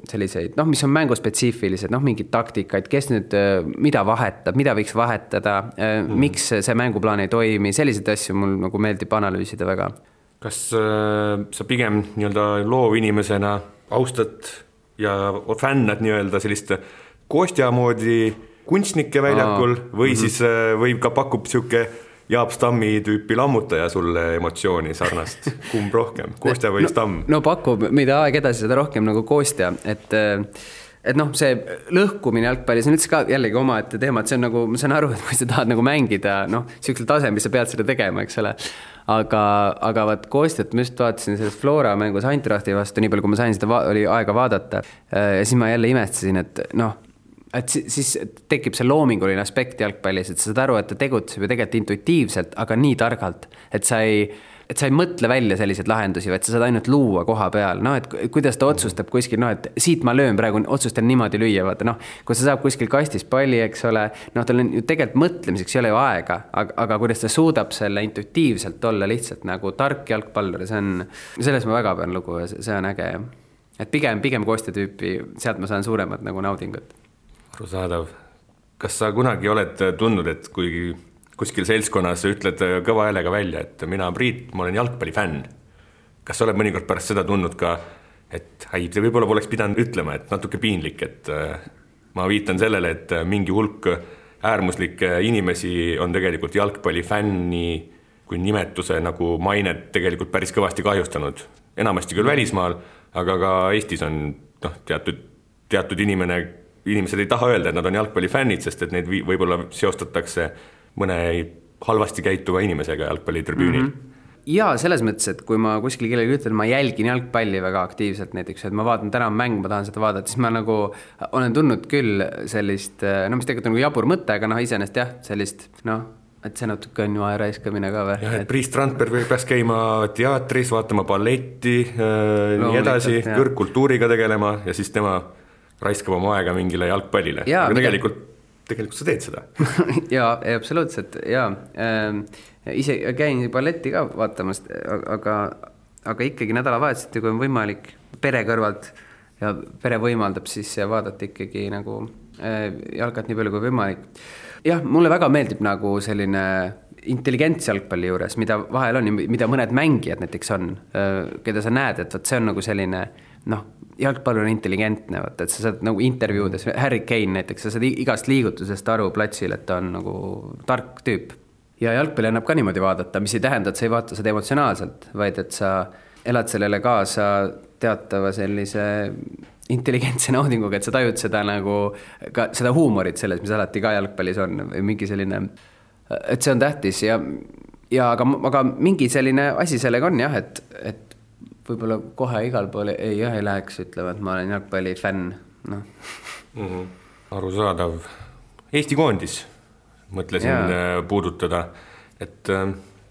selliseid, mis on mänguspetsiifilised, mingid taktikaid, kes nüüd mida vahetab, mida võiks vahetada, miks see mänguplaan ei toimi, selliseid asju mul nagu meeldib analüüsida väga. Kas sa pigem nii-öelda loovinimesena austad ja fännad nii-öelda sellist Kostja moodi kunstnike väljakul või siis võib ka pakub siuke Jaap Stammi tüüpi lammutaja sulle emotsiooni sarnast? Kumb rohkem? Kostja või Stamm? No pakub, mida aeg edasi seda rohkem nagu Kostja, et see lõhkumine jalgpallis on üldse ka jällegi oma ette teema, et see on nagu, ma saan aru, et kui sa tahad nagu mängida, siuksel tasemel sa pead seda tegema, eks ole. Aga vaat Kostjat ma just vaatasin sellest Flora mängus Eintrachti vastu, nii palju kui ma sain seda oli aega vaadata ja siis ma jälle imestasin, et siis tekib see loominguline aspekt jalgpallis, et sa saad aru, et ta tegutseb ju tegelikult intuitiivselt, aga nii targalt, et sa ei mõtle välja selliseid lahendusi, vaid sa saad ainult luua koha peal, et kuidas ta otsustab kuskil, et siit ma löön praegu, otsustan niimoodi lüüa, vaata, kui sa saab kuskil kastis palli, eks ole, tal on ju tegelikult mõtlemiseks ei ole ju aega, aga kuidas ta suudab selle intuitiivselt olla lihtsalt nagu tark jalgpallur, selles ma väga pean lugu ja see on äge. Et pigem Kostja tüüpi, sealt ma saan suuremat nagu naudingut. Arusaadav. Kas sa kunagi oled tundnud, et kui kuskil seltskonnas ütled kõva häälega välja, et mina Priit, ma olen jalgpallifänn. Kas sa oled mõnikord pärast seda tundnud ka, et see võib-olla poleks pidanud ütlema, et natuke piinlik, et ma viitan sellele, et mingi hulk äärmuslikke inimesi on tegelikult jalgpallifänni kui nimetuse nagu mainet tegelikult päris kõvasti kahjustanud. Enamasti küll välismaal, aga ka Eestis on teatud inimesed ei taha öelda, et nad on jalgpallifännid, sest et neid võib-olla seostatakse mõne halvasti käituva inimesega jalgpallitribüünil. Ja selles mõttes, et kui ma kuskil kellegi ütlen, ma jälgin jalgpalli väga aktiivselt näiteks, et ma vaatan täna mäng, ma tahan seda vaadata, siis ma nagu olen tundnud küll sellist, mis tegelikult on nagu jabur mõte, aga iseenesest jah, sellist, et see natuke on ju aeraiskamine ka või? Jah, et Priit Strandberg peaks käima teatris, vaatama balletti, nii edasi, kõrgkultuuriga tegelema ja siis tema raiskab oma aega mingile jalgpallile. Aga tegelikult tegelikult sa teed seda. Jaa, absoluutselt, jaa. Ise käin balletti ka vaatamas, aga ikkagi nädalavahetuseti, kui on võimalik pere kõrvalt ja pere võimaldab siis vaadata ikkagi nagu jalkat nii palju kui võimalik. Jah, mulle väga meeldib nagu selline intelligents jalgpalli juures, mida vahel on, mida mõned mängijad näiteks on, keda sa näed, et see on nagu selline, jalgpall on intelligentne, et sa saad nagu intervjuudes, Harry Kane näiteks, sa saad igast liigutusest aru platsil, et ta on nagu tark tüüp. Ja jalgpalli annab ka niimoodi vaadata, mis ei tähenda, et sa ei vaata seda emotsionaalselt, vaid et sa elad sellele kaasa teatava sellise intelligentse naudinguga, et sa tajud seda nagu ka seda huumorit selles, mis alati ka jalgpallis on või mingi selline, et see on tähtis aga mingi selline asi sellega on jah, et võib-olla kohe igal pool ei läheks, ütlema, et ma olen jalgpalli fänn. Arusaadav. Eesti koondis mõtlesin puudutada, et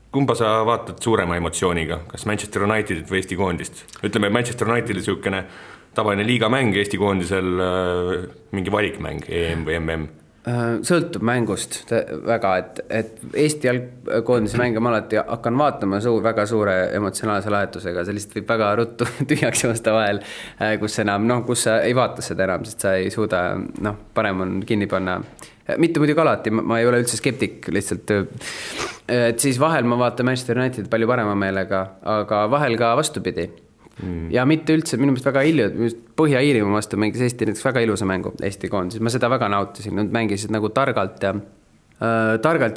kumba sa vaatad suurema emotsiooniga, kas Manchester Unitedit või Eesti koondist? Ütleme, Manchester Unitedil niisugune tavaline liigamäng, Eesti koondisel mingi valikmäng, EM või MM? Sõltub mängust väga, et Eesti jalgkoondise mänge ma alati hakkan vaatama väga suure emotsionaalse lahetusega, see lihtsalt võib väga ruttu tühjaks joosta vahel, kus sa ei vaata seda enam, sest sa ei suuda, parem on kinni panna. Mitte muidugi alati, ma ei ole üldse skeptik, lihtsalt, et siis vahel ma vaatan Manchester United palju parema meelega, aga vahel ka vastupidi. Ja mitte üldse, minu meelest väga Põhja-Iirimaa vastu mängis Eesti näiteks väga ilusa mängu Eesti koondises, ma seda väga nautisin, nad mängisid nagu targalt ja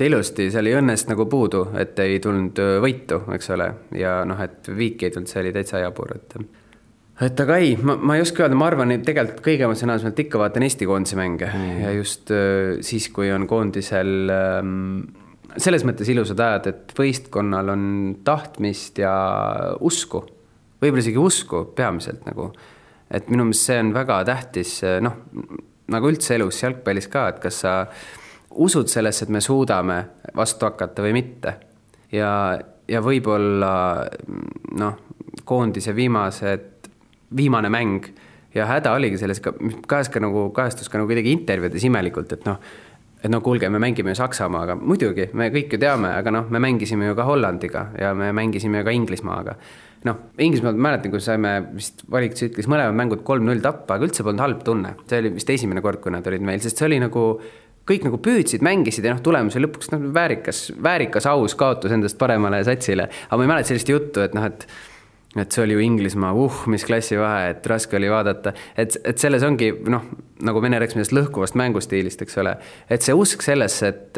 ilusti, seal ei õnnest nagu puudu, et ei tulnud võitu, eks ole, ja et viik ei tulnud, see oli täitsa jabur, et aga ei, ma ei oska öelda, ma arvan, et tegelikult kõige emotsionaalsemalt ikka vaatan Eesti koondise mänge ja just siis, kui on koondisel selles mõttes ilusad ajad, et võistkonnal on tahtmist ja usku, võib-olla isegi usku peamiselt nagu, et minu meelest see on väga tähtis, nagu üldse elus jalgpallis ka, et kas sa usud sellesse, et me suudame vastu hakata või mitte ja võib-olla koondise viimane mäng ja häda oligi selles, kajastus ka nagu kuidagi intervjuudes imelikult, et kuulge, me mängime ju Saksamaaga, muidugi, me kõik ju teame, aga me mängisime ju ka Hollandiga ja me mängisime ju ka Inglismaaga. Inglismaal mäletan, kui saime vist valiktsüklis mõlemad mängud 3-0 tappa, aga üldse polnud halb tunne. See oli vist esimene kord, kui nad olid meil, sest see oli nagu, kõik nagu püüdsid, mängisid ja tulemus oli lõpuks väärikas aus kaotus endast paremale satsile. Aga ma ei mäleta sellist juttu, et see oli ju Inglismaa, mis klassi vahe, et raske oli vaadata. Et selles ongi, nagu Vene rääkis millest lõhkuvast mängustiilist, eks ole, et see usk sellesse, et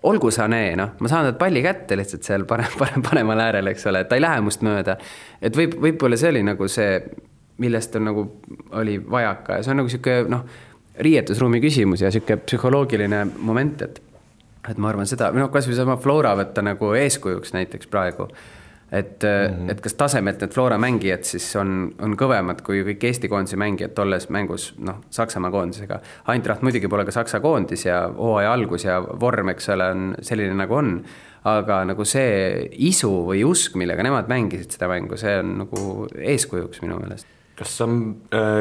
olgu sa ma saan nad palli kätte lihtsalt seal paremal äärel, eks ole, et ta ei lähe must mööda. Et võib-olla see oli nagu see, millest on nagu oli vajaka ja see on nagu siuke, riietusruumi küsimus ja siuke psühholoogiline moment, et ma arvan seda, kas või sama Flora võtta nagu eeskujuks näiteks praegu, et kas tasemelt need Flora mängijad siis on kõvemad kui kõik Eesti koondise mängijad tolles mängus Saksamaa koondisega. Eintracht muidugi pole ka Saksa koondis ja hooaja algus ja vorm, eks ole, on selline nagu on, aga nagu see isu või usk, millega nemad mängisid seda mängu, see on nagu eeskujuks minu meelest. Kas sa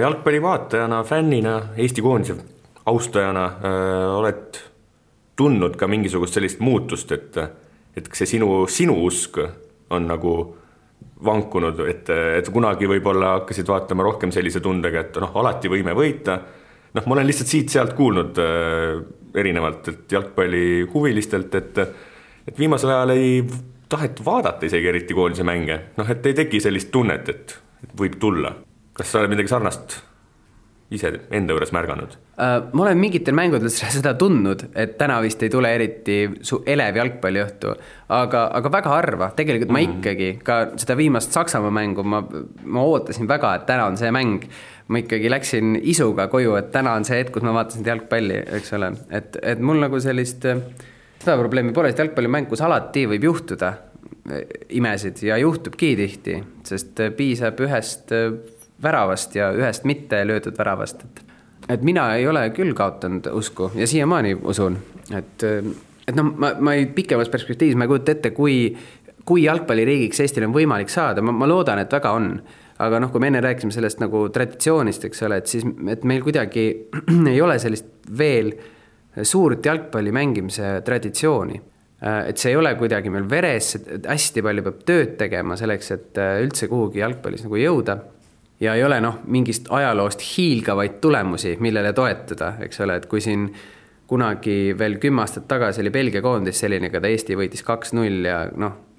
jalgpallivaatajana, fännina, Eesti koondise austajana oled tundnud ka mingisugust sellist muutust, et see sinu usk on nagu vankunud, et kunagi võib-olla hakkasid vaatama rohkem sellise tundega, et alati võime võita. Ma olen lihtsalt siit-sealt kuulnud erinevalt jalgpalli huvilistelt, et viimasel ajal ei tahet vaadata isegi eriti koondise mänge. Et ei teki sellist tunnet, et võib tulla. Kas sa oled midagi sarnast ise enda juures märganud? Ma olen mingitel mängudel seda tundnud, et täna vist ei tule eriti elev jalgpalliõhtu, aga väga harva. Tegelikult ma ikkagi ka seda viimast Saksamaa mängu ma ootasin väga, et täna on see mäng. Ma ikkagi läksin isuga koju, et täna on see hetk, kus ma vaatasin jalgpalli, eks ole. Et mul nagu sellist seda probleemi pole, et jalgpallimäng, kus alati võib juhtuda imesid ja juhtubki tihti, sest piisab ühest väravast ja ühest mitte löödud väravast. Et mina ei ole küll kaotanud usku ja siiamaani usun, et ma ei pikemas perspektiivis ma ei kujuta ette, kui jalgpalliriigiks Eestil on võimalik saada, ma loodan, et väga on, aga noh, kui me enne rääkisime sellest nagu traditsioonist, eks ole, et siis et meil kuidagi ei ole sellist veel suurt jalgpalli mängimise traditsiooni. Et see ei ole kuidagi meil veres, hästi palju peab tööd tegema selleks, et üldse kuhugi jalgpallis nagu jõuda. Ja ei ole mingist ajaloost hiilgavaid tulemusi, millele toetada, eks ole, et kui siin kunagi veel 10 aastat tagasi oli Belgia koondis selline, kada Eesti võitis 2-0 ja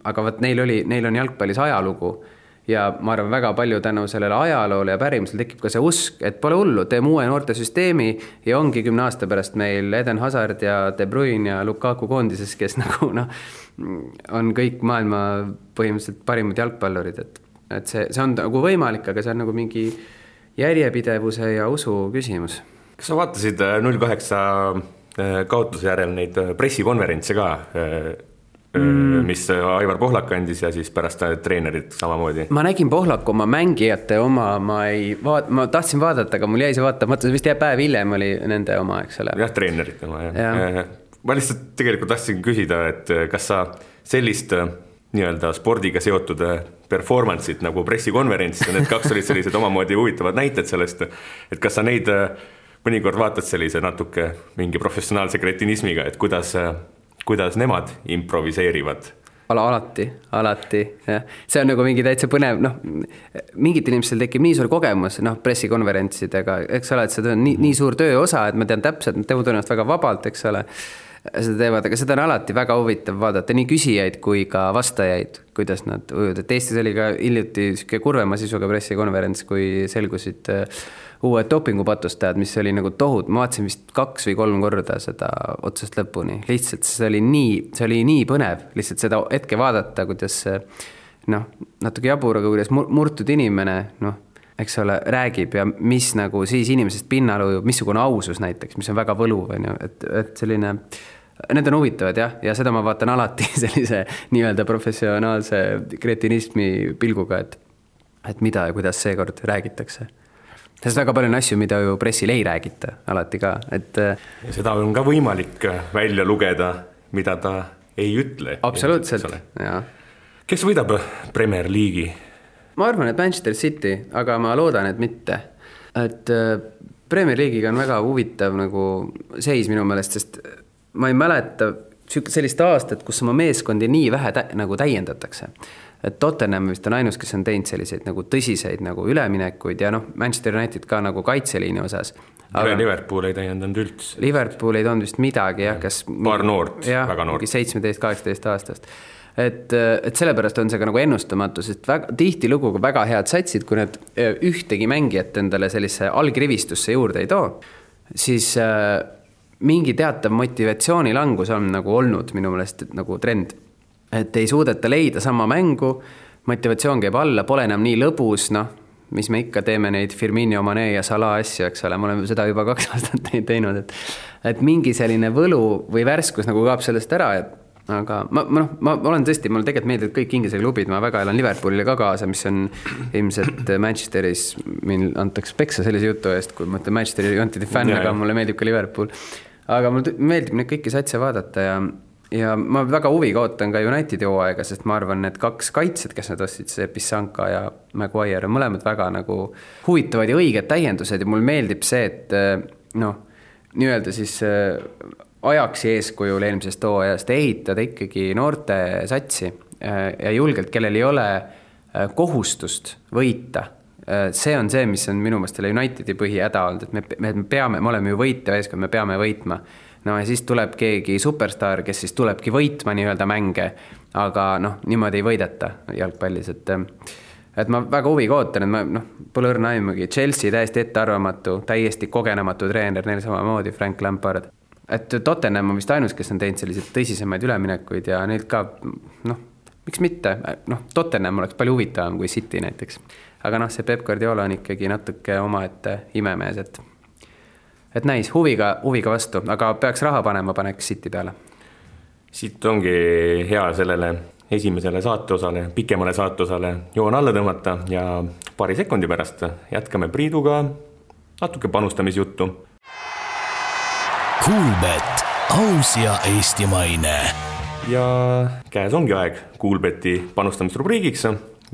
aga neil on jalgpallis ajalugu ja ma arvan väga palju tänu sellele ajaloole ja pärimusel tekib ka see usk, et pole hullu, teeme uue noorte süsteemi ja ongi 10 aasta pärast meil Eden Hazard ja De Bruyne ja Lukaku koondises, kes on kõik maailma põhimõtteliselt parimad jalgpallurid, et see on nagu võimalik, aga see on nagu mingi järjepidevuse ja usu küsimus. Kas sa vaatasid 08 kaotuse järel neid pressikonverentse ka, mis Aivar Pohlak andis ja siis pärast treenerid samamoodi? Ma nägin Pohlaku oma mängijate oma, ma tahtsin vaadata, aga mul jäi see vaatamata, vist päev hiljem oli nende oma, eks ole. Jah, treenerid oma, jah. Ma lihtsalt tegelikult tahtsin küsida, et kas sa sellist nii-öelda spordiga seotud performance'it nagu pressikonverents ja need 2 olid sellised omamoodi huvitavad näited sellest, et kas sa neid mõnikord vaatad sellise natuke mingi professionaalse kretinismiga, et kuidas nemad improviseerivad? Alati, jah. See on nagu mingi täitsa põnev, mingit inimestel tekib nii suur kogemus pressikonverentsidega, eks ole, et seda on nii suur töö osa, et ma tean täpselt, nad teevad ennast väga vabalt, eks ole, seda teevad, aga seda on alati väga huvitav vaadata, nii küsijaid kui ka vastajaid, kuidas nad ujuvad, et Eestis oli ka hiljuti kurvema sisuga pressikonverents, kui selgusid uued dopingupatustajad, mis oli nagu tohut, ma vaatasin vist 2 või 3 korda seda otsast lõpuni, lihtsalt see oli nii põnev, lihtsalt seda hetke vaadata, kuidas natuke jabur, aga kuidas murtud inimene, eks ole, räägib ja mis nagu siis inimesest pinnal ujub, missugune ausus näiteks, mis on väga võluv, et selline, need on huvitavad jah, ja seda ma vaatan alati sellise nii-öelda professionaalse kretinismi pilguga, et mida ja kuidas seekord räägitakse. Sest väga palju on asju, mida ju pressil ei räägita alati ka, et ja seda on ka võimalik välja lugeda, mida ta ei ütle. Absoluutselt, jah. Kes võidab Premier League'i? Ma arvan, et Manchester City, aga ma loodan, et mitte. Et Premier League'iga on väga huvitav nagu seis minu meelest, sest ma ei mäleta sellist aastat, kus oma meeskondi nii vähe nagu täiendatakse. Et Tottenham vist on ainus, kes on teinud selliseid nagu tõsiseid nagu üleminekuid ja Manchester United ka nagu kaitseliini osas. Aga Liverpool ei täiendanud üldse. Liverpool ei toonud vist midagi, kas paar noort, väga noort. 17-18 aastast. Et sellepärast on see ka nagu ennustamatu, sest tihti luguga väga head satsid, kui need ühtegi mängijat endale sellise algrivistusse juurde ei too, siis mingi teatav motivatsioonilangus on nagu olnud minu meelest nagu trend. Et ei suudeta leida sama mängu, motivatsioon käib alla, pole enam nii lõbus, mis me ikka teeme neid Firmino, Mane ja Salah asju, eks ole, me oleme seda juba 2 aastat teinud, et mingi selline võlu või värskus nagu kaab sellest ära, aga ma olen tõesti, mulle tegelikult meeldib kõik Inglise klubid, ma väga elan Liverpoolile ka kaasa, mis on ilmselt Manchesteris, meil antaks peksa sellise jutu eest, kui ma ütlen Manchesteri Unitedi fänn, aga mulle meeldib ka Liverpool, aga mulle meeldib neid kõiki satse vaadata ja ma väga huviga ootan ka Unitedi hooaega, sest ma arvan, need 2 kaitsed, kes nad ostsid, see Pissanka ja Maguire, on mõlemad väga nagu huvitavad ja õiged täiendused ja mul meeldib see, et nii-öelda siis ajaksi eeskujul eelmisest hooajast ehitada ikkagi noorte satsi ja julgelt, kellel ei ole kohustust võita. See on see, mis on minu meelest Unitedi põhihäda olnud, et me oleme ju võitja eeskond, me peame võitma. Ja siis tuleb keegi superstar, kes siis tulebki võitma nii-öelda mänge, aga niimoodi ei võideta jalgpallis, et ma väga huviga ootan, et ma pole õrna aimugi. Chelsea täiesti ettearvamatu, täiesti kogenematu treener, neil samamoodi Frank Lampard. Et Tottenham on vist ainus, kes on teinud selliseid tõsisemaid üleminekuid ja neilt ka, miks mitte, Tottenham oleks palju huvitavam kui City näiteks. Aga see Pep Guardiola on ikkagi natuke omaette imemees, et näis, huviga vastu, aga peaks raha panema, paneks City peale. Siit ongi hea sellele esimesele saateosale, pikemale saateosale joon alla tõmmata ja paari sekundi pärast jätkame Priiduga natuke panustamisjuttu. Kuulbet, aus ja eestimaine. Ja käes ongi aeg Kuulbeti panustamisrubriigiks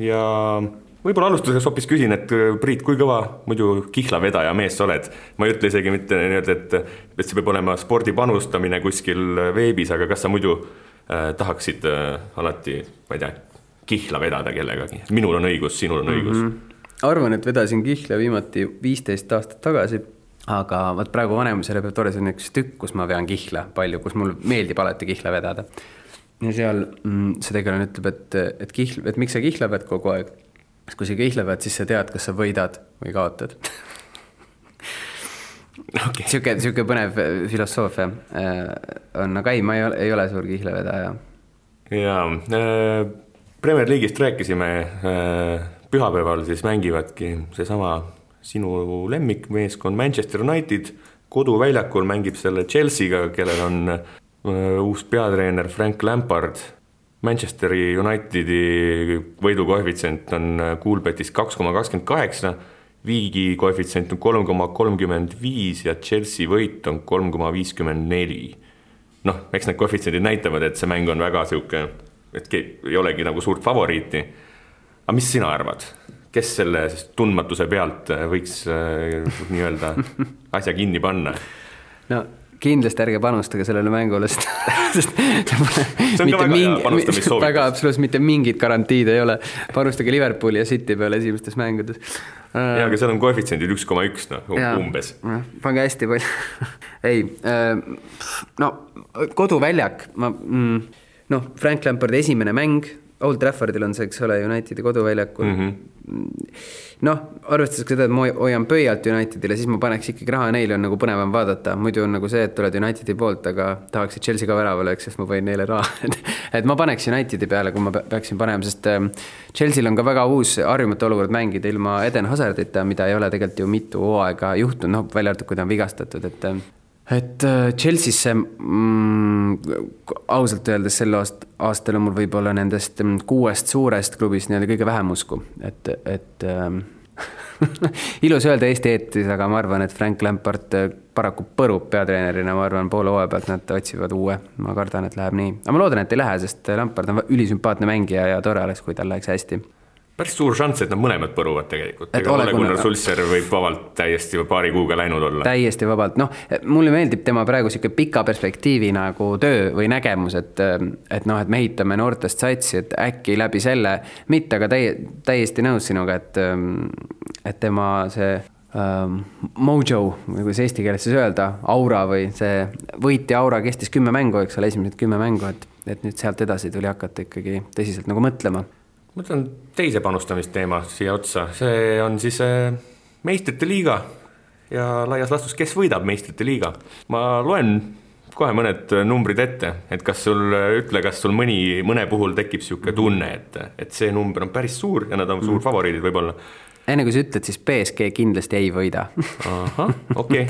ja võib-olla alustuseks hoopis küsin, et Priit, kui kõva muidu kihlavedaja mees sa oled? Ma ei ütle isegi mitte nii, et see peab olema spordi panustamine kuskil veebis, aga kas sa muidu tahaksid alati, ma ei tea, kihla vedada kellegagi? Minul on õigus, sinul on õigus. Arvan, et vedasin kihla viimati 15 aastat tagasi, aga võt praegu vanemusele peab tore, see on üks tükk, kus ma vean kihla palju, kus mul meeldib alati kihla vedada. Ja seal see tegelane ütleb, et miks sa kihla ved kogu aeg? Kui sa kihla ved, siis sa tead, kas sa võidad või kaotad. Okay. Siuke põnev filosoofia on, aga ei, ma ei ole suur kihlevedaja. Jaa, Premier League'ist rääkisime, pühapäeval siis mängivadki seesama sinu lemmikmeeskond Manchester United, koduväljakul mängib selle Chelsea'ga, kellel on uus peatreener Frank Lampard. Manchesteri Unitedi võidukoefitsient on Coolbetis 2,28, Viigi koefitsient on 3,35 ja Chelsea võit on 3,54. Noh, eks need koefitsiendid näitavad, et see mäng on väga siuke, et ei olegi nagu suurt favoriiti. Aga mis sina arvad? Kes selle tundmatuse pealt võiks nii-öelda asja kinni panna? No kindlasti ärge panustage sellele mängule, sest see on ka väga hea panustamissoovitus. Väga absoluutselt mitte mingid garantiid ei ole. Panustage Liverpooli ja City peale esimestes mängudes. Ja, aga seal on koefitsiendid 1,1 umbes. Pange hästi palju. Ei, no koduväljak, Frank Lampardi esimene mäng, Old Traffordil on see, eks ole, Unitedi koduväljakul. Arvestades seda, et ma hoian pöialt Unitedile, siis ma paneks ikkagi raha, neile on nagu põnevam vaadata. Muidu on nagu see, et oled Unitedi poolt, aga tahaksid Chelsea ka väravale, sest ma võin neile raha. Et ma paneks Unitedi peale, kui ma peaksin panema, sest Chelsea'l on ka väga uus harjumatu olukord mängida ilma Eden Hazardita, mida ei ole tegelikult ju mitu hooaega juhtunud, välja arvatud, kui ta on vigastatud, et Chelsea'sse ausalt öeldes sel aastal on mul võib-olla nendest 6 suurest klubist kõige vähem usku, et ilus öelda Eesti eetris, aga ma arvan, et Frank Lampard paraku põrub peatreenerina, ma arvan, poole hooaja pealt nad otsivad uue, ma kardan, et läheb nii, aga ma loodan, et ei lähe, sest Lampard on ülisümpaatne mängija ja tore oleks, kui tal läheks hästi. Päris suur šanss, et nad mõlemad põruvad tegelikult. Gunnar Sulser võib vabalt täiesti paari kuuga läinud olla. Täiesti vabalt. Mulle meeldib tema praegu siuke pika perspektiivi nagu töö või nägemus, et me ehitame noortest satsi, et äkki läbi selle, mitte aga täiesti nõus sinuga, et tema see mojo, või kuidas eesti keeles siis öelda, aura või see võiti aura kestis 10 mängu, eks ole, esimesed 10 mängu, et nüüd sealt edasi tuli hakata ikkagi tõsiselt nagu mõtlema. Mõtlen teise panustamisteema siia otsa. See on siis meistrite liiga ja laias lastus, kes võidab meistrite liiga. Ma loen kohe mõned numbrid ette, et kas sul mõne puhul tekib siuke tunne, et see number on päris suur ja nad on suur favoriidid võib-olla. Enne kui sa ütled, siis PSG kindlasti ei võida. Aha, okei.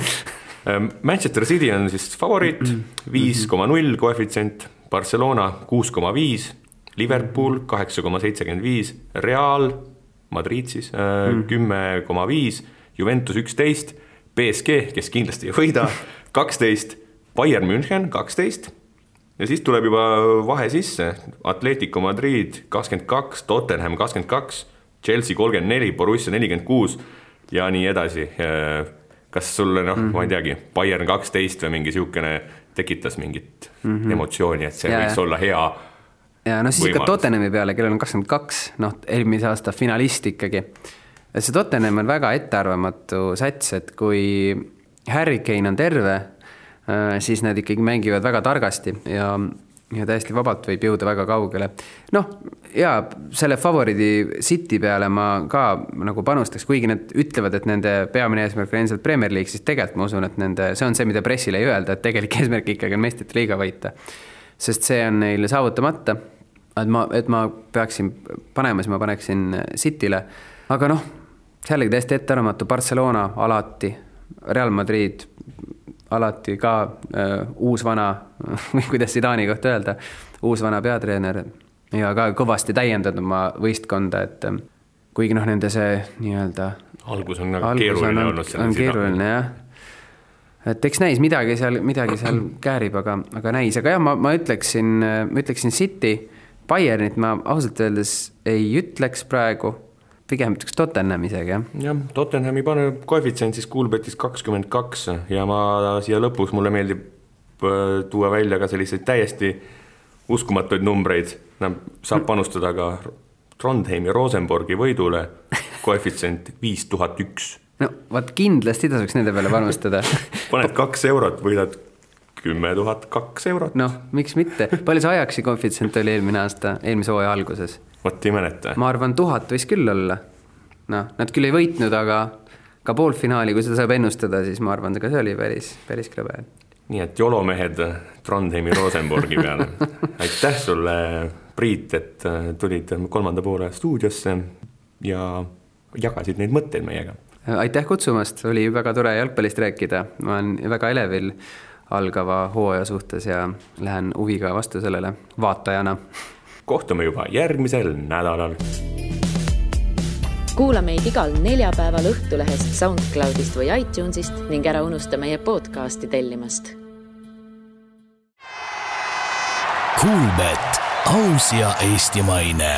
Manchester City on siis favoriit, 5,0 koefitsient, Barcelona 6,5, Liverpool 8,75, Real Madrid siis 10,5, Juventus 11, PSG, kes kindlasti ei võida, 12, Bayern München 12 ja siis tuleb juba vahe sisse, Atletico Madrid 22, Tottenham 22, Chelsea 34, Borussia 46 ja nii edasi. Kas sulle, ma ei teagi, Bayern 12 või mingi siukene tekitas mingit emotsiooni, et see võiks olla hea ja siis ikka Tottenhami peale, kellel on 22, eelmise aasta finalist ikkagi. See Tottenham on väga ettearvamatu sats, et kui Harry Kane on terve, siis nad ikkagi mängivad väga targasti ja täiesti vabalt võib jõuda väga kaugele. Ja selle favoriidi City peale ma ka nagu panustaks, kuigi need ütlevad, et nende peamine eesmärk on endiselt Premier League, siis tegelikult ma usun, et see on see, mida pressile ei öelda, et tegelik eesmärk ikkagi on meistrite liiga võita. Sest see on neile saavutamata. Et ma peaksin panema, siis ma paneksin Cityle, aga sealegi täiesti ettearvamatu, Barcelona alati, Real Madrid alati ka uus vana, või kuidas Zidani kohta öelda, uus vana peatreener ja ka kõvasti täiendanud oma võistkonda, et kuigi nende see nii-öelda algus on keeruline olnud. On keeruline, jah. Et eks näis, midagi seal käärib, aga näis. Aga jah, ma ütleksin City, Bayernit ma ausalt öeldes ei ütleks praegu, pigem üks Tottenham isegi, jah? Jah, Tottenhami paneb koefitsient siis Coolbetis 22 ja ma siia lõpus mulle meeldib tuua välja ka selliseid täiesti uskumatuid numbreid. Saab panustada ka Trondheimi Rosenborgi võidule koefitsient 5001. No, vaat kindlasti tasuks nende peale panustada. Paned 2 eurot, võidad 10 200 eurot. Noh, miks mitte? Palju see Ajaxi koefitsient oli eelmise hooaja alguses? Vot ei mäleta. Ma arvan, 1000 võis küll olla. No, nad küll ei võitnud, aga ka poolfinaali, kui seda saab ennustada, siis ma arvan, et see oli päris krõbe. Nii et jolomehed Trondheimi Rosenborgi peale. Aitäh sulle, Priit, et tulid 3. poole stuudiosse ja jagasid neid mõtteid meiega. Aitäh kutsumast, oli väga tore jalgpallist rääkida. Ma olen väga elevil algava hooaja suhtes ja lähen huviga vastu sellele vaatajana. Kohtume juba järgmisel nädalal. Kuula meid igal neljapäeval Õhtulehest, SoundCloudist või iTunesist ning ära unusta meie podcasti tellimast. Coolbet, aus ja eestimaine.